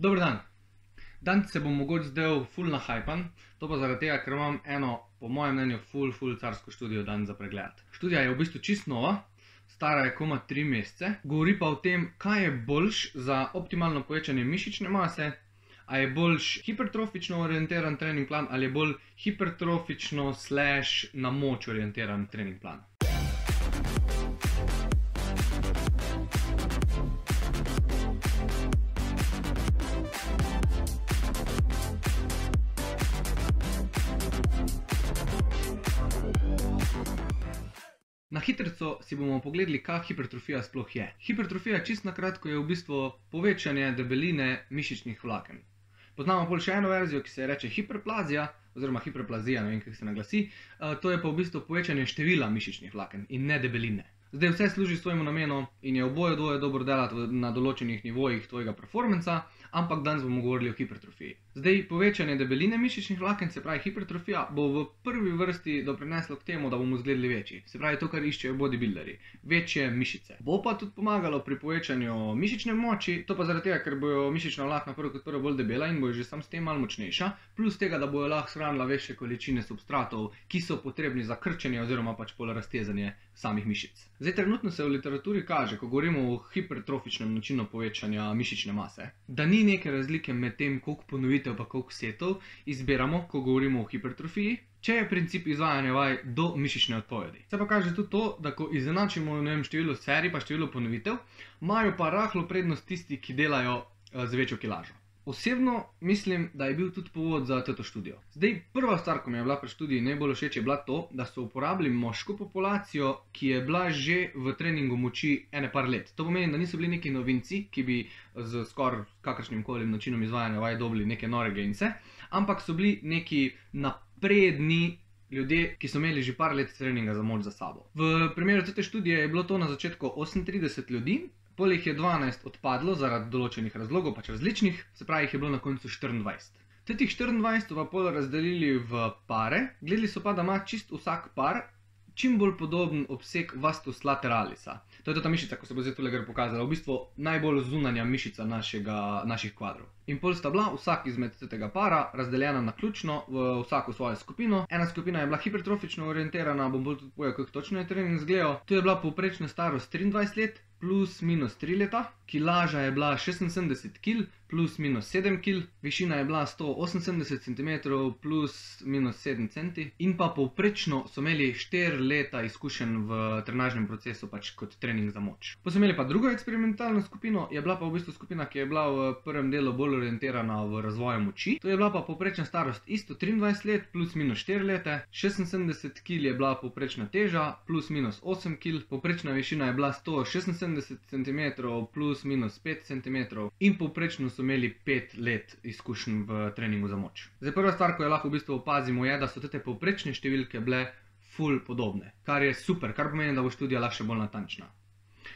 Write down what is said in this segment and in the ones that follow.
Dober dan. Danes se bom mogoče zdel ful nahajpan, to pa zaradi tega, ker imam eno, po mojem mnenju, ful carsko študijo danes za pregledati. Študija je v bistvu čist nova, stara je komaj 3 mesece, govori pa o tem, kaj je boljš za optimalno povečanje mišične mase, a je boljš hipertrofično orientiran trening plan ali je bolj hipertrofično / na moč orientiran trening plan. Na hitrico si bomo pogledali, kaj hipertrofija sploh je. Hipertrofija čisto na kratko je v bistvu povečanje debeline mišičnih vlaken. Poznamo pol še eno verzijo, ki se reče hiperplazija, oziroma hiperplazija, ne vem, kako se naglasi. To je pa v bistvu povečanje števila mišičnih vlaken in ne debeline. Zdaj vse služi svojemu namenu in je oboje dvoje dobro delati na določenih nivojih tvojega performansa, ampak danes bomo govorili o hipertrofiji. Zdaj, povečanje debeline mišičnih vlaken, se pravi hipertrofija, bo v prvi vrsti doprineslo k temu, da bomo izgledali večji. Se pravi to, kar iščejo bodybuilderji. Večje mišice. Bo pa tudi pomagalo pri povečanju mišične moči, to pa zaradi tega, ker bojo mišična vlakna prvo kot prvo bolj debela in bojo že sam s tem malo močnejša, plus tega, da bojo lahko shranila večje količine substratov, ki so potrebni za krčenje oziroma pač pol raztezanje samih mišic. Zdaj, trenutno se v literaturi kaže, ko govorimo o hipertrofičnem načinu povečanja mišične mase, da ni neke razlike med tem, koliko ponovitev pa koliko setov izbiramo, ko govorimo o hipertrofiji, če je princip izvajanja vaj do mišične odpovedi. Se pa kaže tudi to, da ko izenačimo, ne vem, število serij pa število ponovitev, imajo pa rahlo prednost tisti, ki delajo z večjo kilažo. Osebno mislim, da je bil tudi povod za to študijo. Zdaj, prva stvar, ko mi je bila pri študiji najbolj všeč, je bila to, da so uporabili moško populacijo, ki je bila že v treningu moči ene par let. To pomeni, da niso bili neki novinci, ki bi z skoraj kakršnim koli načinom izvajanja vaj dobili neke nore gence, ampak so bili neki napredni ljudje, ki so imeli že par let treninga za moč za sabo. V primeru te študije je bilo to na začetku 38 ljudi, pol jih je 12 odpadlo zaradi določenih razlogov, pač različnih, se pravi jih je bilo na koncu 24. Teh 24 so pa pol razdelili v pare, gledali so pa, da ima čist vsak par čim bolj podoben obseg vastus lateralisa. To je ta mišica, ko se bo zdaj tule gor pokazala, v bistvu najbolj zunanja mišica naših kvadrov. In pol sta bila vsak izmed tega para razdeljena naključno v vsako svojo skupino. Ena skupina je bila hipertrofično orientirana, bom bolj tudi povedal, kako točno je trening izgledal. Tu je bila povprečna starost 23 let, plus minus 3 leta, kilaža je bila 76 kg, plus minus 7 kg, višina je bila 178 cm, plus minus 7 cm, in pa povprečno so imeli 4 leta izkušenj v trenažnem procesu pač kot trening za moč. Pa so imeli pa drugo eksperimentalno skupino, je bila pa v bistvu skupina, ki je bila v prvem delu bolj orientirana v razvoju moči. To je bila pa povprečna starost isto 23 let, plus minus 4 leta, 76 kg je bila povprečna teža, plus minus 8 kg, povprečna višina je bila 176 cm plus minus 5 cm in povprečno so imeli 5 let izkušenj v treningu za moč. Zdaj, prva stvar, ko jo lahko v bistvu opazimo, je, da so te povprečne številke bile ful podobne, kar je super, kar pomeni, da bo študija lahko še bolj natančna.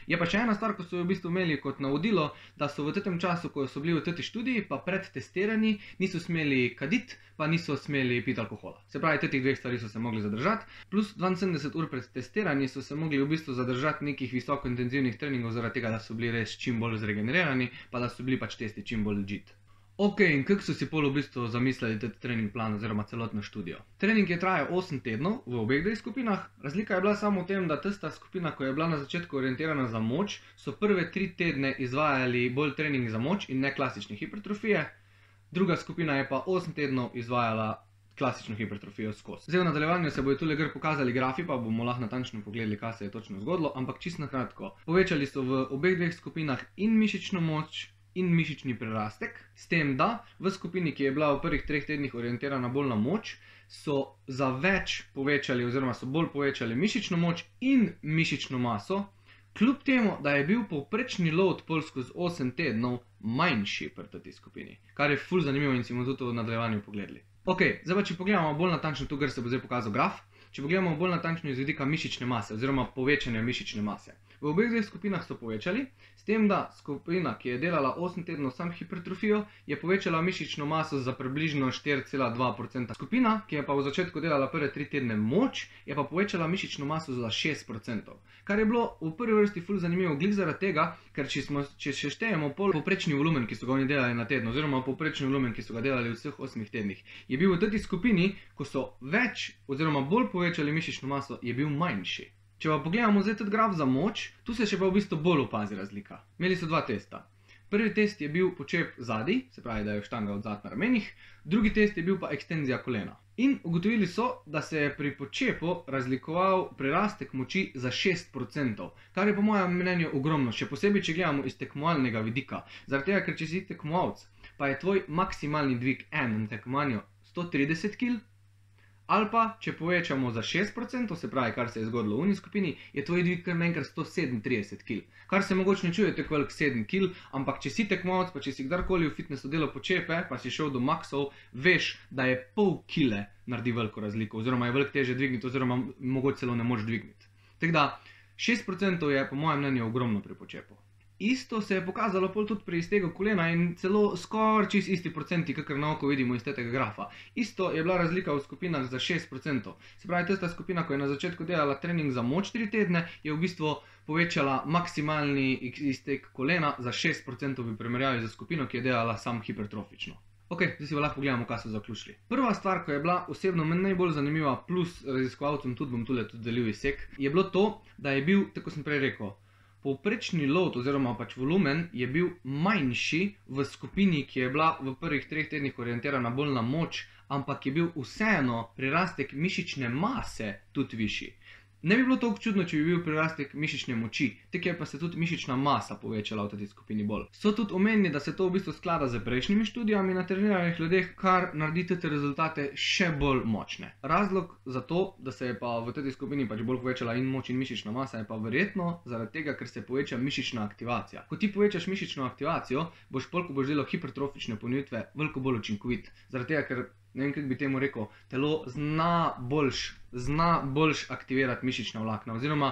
Je pa še ena stvar, ko so jo v bistvu imeli kot navodilo, da so v tem času, ko so bili v tej študiji, pa pred testiranji, niso smeli kaditi, pa niso smeli piti alkohola. Se pravi, teh dveh stvari so se mogli zadržati, plus 72 ur pred testiranji so se mogli v bistvu zadržati nekih visokointenzivnih treningov, zaradi tega, da so bili res čim bolj zregenerirani, pa da so bili pač testi čim bolj legit. Ok, in kako so si pol v bistvu zamislili ta trening plan oziroma celotno študijo? Trening je trajal 8 tednov v obeh dveh skupinah. Razlika je bila samo v tem, da tista skupina, ko je bila na začetku orientirana za moč, so prve 3 tedne izvajali bolj trening za moč in ne klasične hipertrofije. Druga skupina je pa 8 tednov izvajala klasično hipertrofijo skozi. Zdaj v nadaljevanju se bojo tule gor pokazali grafi, pa bomo lahko natančno pogledali, kaj se je točno zgodilo, ampak čisto na kratko. Povečali so v obeh dveh skupinah in mišično moč in mišični prerastek, s tem, da v skupini, ki je bila v prvih 3 tednih orientirana bolj na moč, so za več povečali oziroma so bolj povečali mišično moč in mišično maso, kljub temu, da je bil povprečni load pol skozi 8 tednov manjši pri tej skupini, kar je ful zanimivo in si bomo tudi v nadaljevanju pogledali. Ok, zdaj pa če pogledamo bolj natančno tu, kar se bo zdaj pokazal graf, če pogledamo bolj natančno iz vidika mišične mase oziroma povečanja mišične mase. V obeh dveh skupinah so povečali, s tem, da skupina, ki je delala 8 tednov sam hipertrofijo, je povečala mišično maso za približno 4,2%. Skupina, ki je pa v začetku delala prve 3 tedne moč, je pa povečala mišično maso za 6%. Kar je bilo v prvi vrsti ful zanimivo glih zaradi tega, ker če še štejemo povprečni volumen, ki so ga oni delali na teden, oziroma povprečni volumen, ki so ga delali v vseh 8 tednih, je bil v tej skupini, ko so več oziroma bolj povečali mišično maso, je bil manjši. Če pa pogledamo zdaj tudi graf za moč, tu se še pa v bistvu bolj opazi razlika. Imeli so dva testa. Prvi test je bil počep zadaj, se pravi, da je štanga odzad na ramenih, drugi test je bil pa ekstenzija kolena. In ugotovili so, da se je pri počepu razlikoval prirastek moči za 6%, kar je po mojem mnenju ogromno, še posebej, če gledamo iz tekmovalnega vidika. Zaradi tega, ker če si tekmovalec, pa je tvoj maksimalni dvig na tekmovanju 130 kg, ali pa, če povečamo za 6%, se pravi, kar se je zgodilo v uni skupini, je tvoj dvig kar naenkrat 137 kg. Kar se mogoče ne čuje tako velik 7 kg, ampak če si tekmovalec, pa če si kdarkoli v fitnessu delal počepe, pa si šel do maksov, veš, da je pol kile naredi veliko razliko, oziroma je veliko teže dvigniti, oziroma mogoče celo ne moreš dvigniti. Tako da 6% je po mojem mnenju ogromno pri počepu. Isto se je pokazalo pol tudi pri iztegu kolena in celo skoraj čist isti procenti, kakor na oko vidimo iz tega grafa. Isto je bila razlika v skupinah za 6%. Se pravi, tista skupina, ko je na začetku delala trening za moč 3 tedne, je v bistvu povečala maksimalni izteg kolena za 6% v primerjavi za skupino, ki je delala sam hipertrofično. Ok, zdaj si pa lahko pogledamo, kaj so zaključili. Prva stvar, ko je bila osebno meni najbolj zanimiva, plus raziskovalcem tudi bom tule tudi delil izsek, je bilo to, da je bil, tako sem prej rekel, povprečni load oziroma pač volumen je bil manjši v skupini, ki je bila v prvih 3 tednih orientirana bolj na moč, ampak je bil vseeno prirastek mišične mase tudi višji. Ne bi bilo toliko čudno, če bi bil prirastek mišične moči, tako je pa se tudi mišična masa povečala v tej skupini bolj. So tudi omenili, da se to v bistvu sklada z prejšnjimi študijami na treniranih ljudeh, kar naredi te rezultate še bolj močne. Razlog za to, da se je pa v tej skupini pač bolj povečala in moč in mišična masa, je pa verjetno zaradi tega, ker se poveča mišična aktivacija. Ko ti povečaš mišično aktivacijo, boš pol, ko boš delal hipertrofične ponovitve, veliko bolj učinkovit. Zaradi tega, ker ne vem, kako bi temu rekel, telo zna boljš aktivirati mišična vlakna, oziroma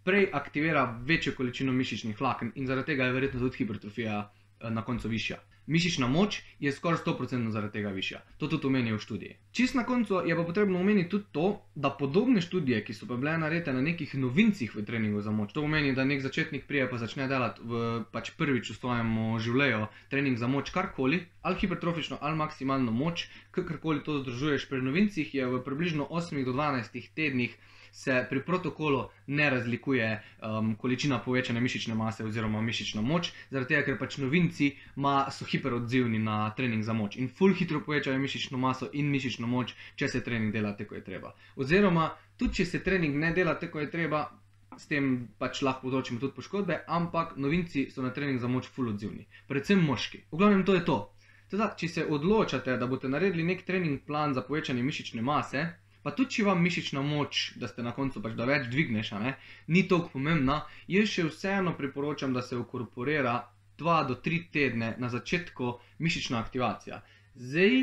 prej aktivira večjo količino mišičnih vlaken in zaradi tega je verjetno tudi hipertrofija na koncu višja. Mišična moč je skoraj 100% zaradi tega višja. To tudi omenijo v študiji. Čist na koncu je pa potrebno omeniti tudi to, da podobne študije, ki so pa bile narejene na nekih novincih v treningu za moč, to pomeni, da nek začetnik prije pa začne delati pač prvič v svojem življenju trening za moč karkoli, ali hipertrofično, ali maksimalno moč, kakorkoli to združuješ pri novincih, je v približno 8 do 12 tednih se pri protokolu ne razlikuje količina povečane mišične mase oziroma mišična moč, zaradi tega, ker pač novinci so hiperodzivni na trening za moč in ful hitro povečajo mišično maso in mišično moč, če se trening dela tako, kot je treba. Oziroma, tudi če se trening ne dela tako, kot je treba, s tem pač lahko povzročimo tudi poškodbe, ampak novinci so na trening za moč ful odzivni, predvsem moški. V glavnem to je to. Teda, če se odločate, da boste naredili nek trening plan za povečanje mišične mase, pa tudi če vam mišična moč, da ste na koncu pač, da več dvigneš, ni toliko pomembna, jaz še vseeno priporočam, da se inkorporira 2 do 3 tedne na začetku mišična aktivacija. Zdaj,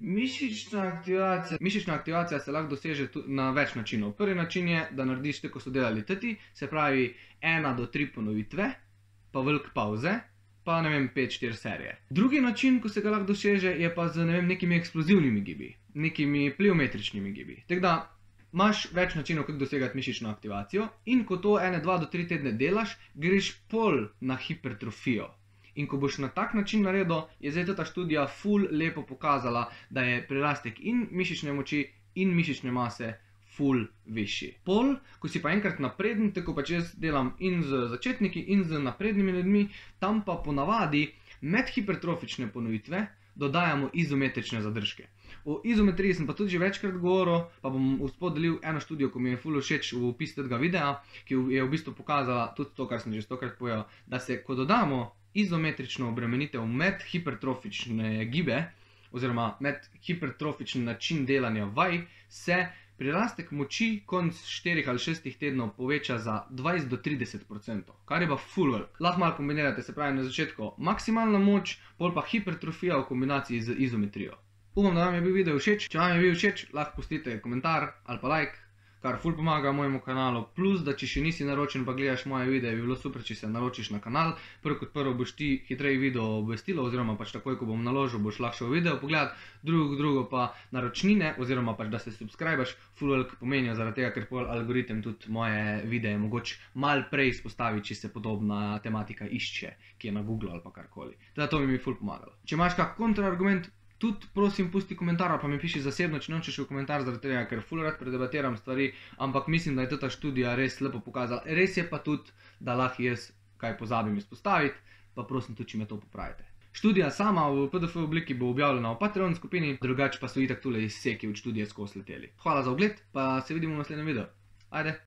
mišična aktivacija se lahko doseže na več načinov. Prvi način je, da narediš tako, ko so delali teti, se pravi 1 do 3 ponovitve, pa veliko pauze, pa ne vem, 5-4 serije. Drugi način, ko se ga lahko doseže, je pa z nekimi eksplozivnimi gibi, nekimi pliometričnimi gibi. Tako da imaš več načinov, kako dosegati mišično aktivacijo in ko to 1, 2 do 3 tedne delaš, greš pol na hipertrofijo. In ko boš na tak način naredil, je zdaj ta študija ful lepo pokazala, da je prirastek in mišične moči in mišične mase ful višji. Pol, ko si pa enkrat napreden, tako pač jaz delam in z začetniki in z naprednimi ljudmi, tam pa ponavadi med hipertrofične ponovitve dodajamo izometrične zadržke. O izometriji sem pa tudi že večkrat govoril, pa bom vspod delil eno študijo, ko mi je ful všeč v opis tega videa, ki je v bistvu pokazala tudi to, kar sem že 100krat povedal, da se, ko dodamo izometrično obremenitev med hipertrofične gibe, oziroma med hipertrofični način delanja vaj, se prirastek moči konc 4 ali 6 tednov poveča za 20 do 30%, kar je pa ful velik. Lahko malo kombinirate, se pravi na začetku maksimalna moč, pol pa hipertrofija v kombinaciji z izometrijo. Upam, da vam je bil video všeč. Če vam je bil všeč, lahko pustite komentar ali pa like, kar ful pomaga mojemu kanalu, plus da če še nisi naročen pa gledaš moje videe, bi bilo super, če se naročiš na kanal. Prvo kot prvo boš ti hitreje video obvestilo, oziroma pač takoj, ko bom naložil, boš lahko šel video pogledat, drugo pa naročnine, oziroma pač da se subscribeš, ful veliko pomenijo, zaradi tega, ker pol algoritem tudi moje videe mogoče malo prej izpostavi, če se podobna tematika išče, ki je na Google ali pa karkoli. Teda to bi mi ful pomagalo. Če imaš kak kontraargument, tudi prosim pusti komentar ali pa mi piši zasebno, če nočeš v komentar, zaradi tega, ker ful rad predebatiram stvari, ampak mislim, da je ta študija res lepo pokazala. Res je pa tudi, da lahko jaz kaj pozabim izpostaviti, pa prosim tudi, če me to popravite. Študija sama v PDF obliki bo objavljena v Patreon skupini, drugače pa so itak tule izseki od študije skozi leteli. Hvala za ogled, pa se vidimo v naslednjem videu. Ajde!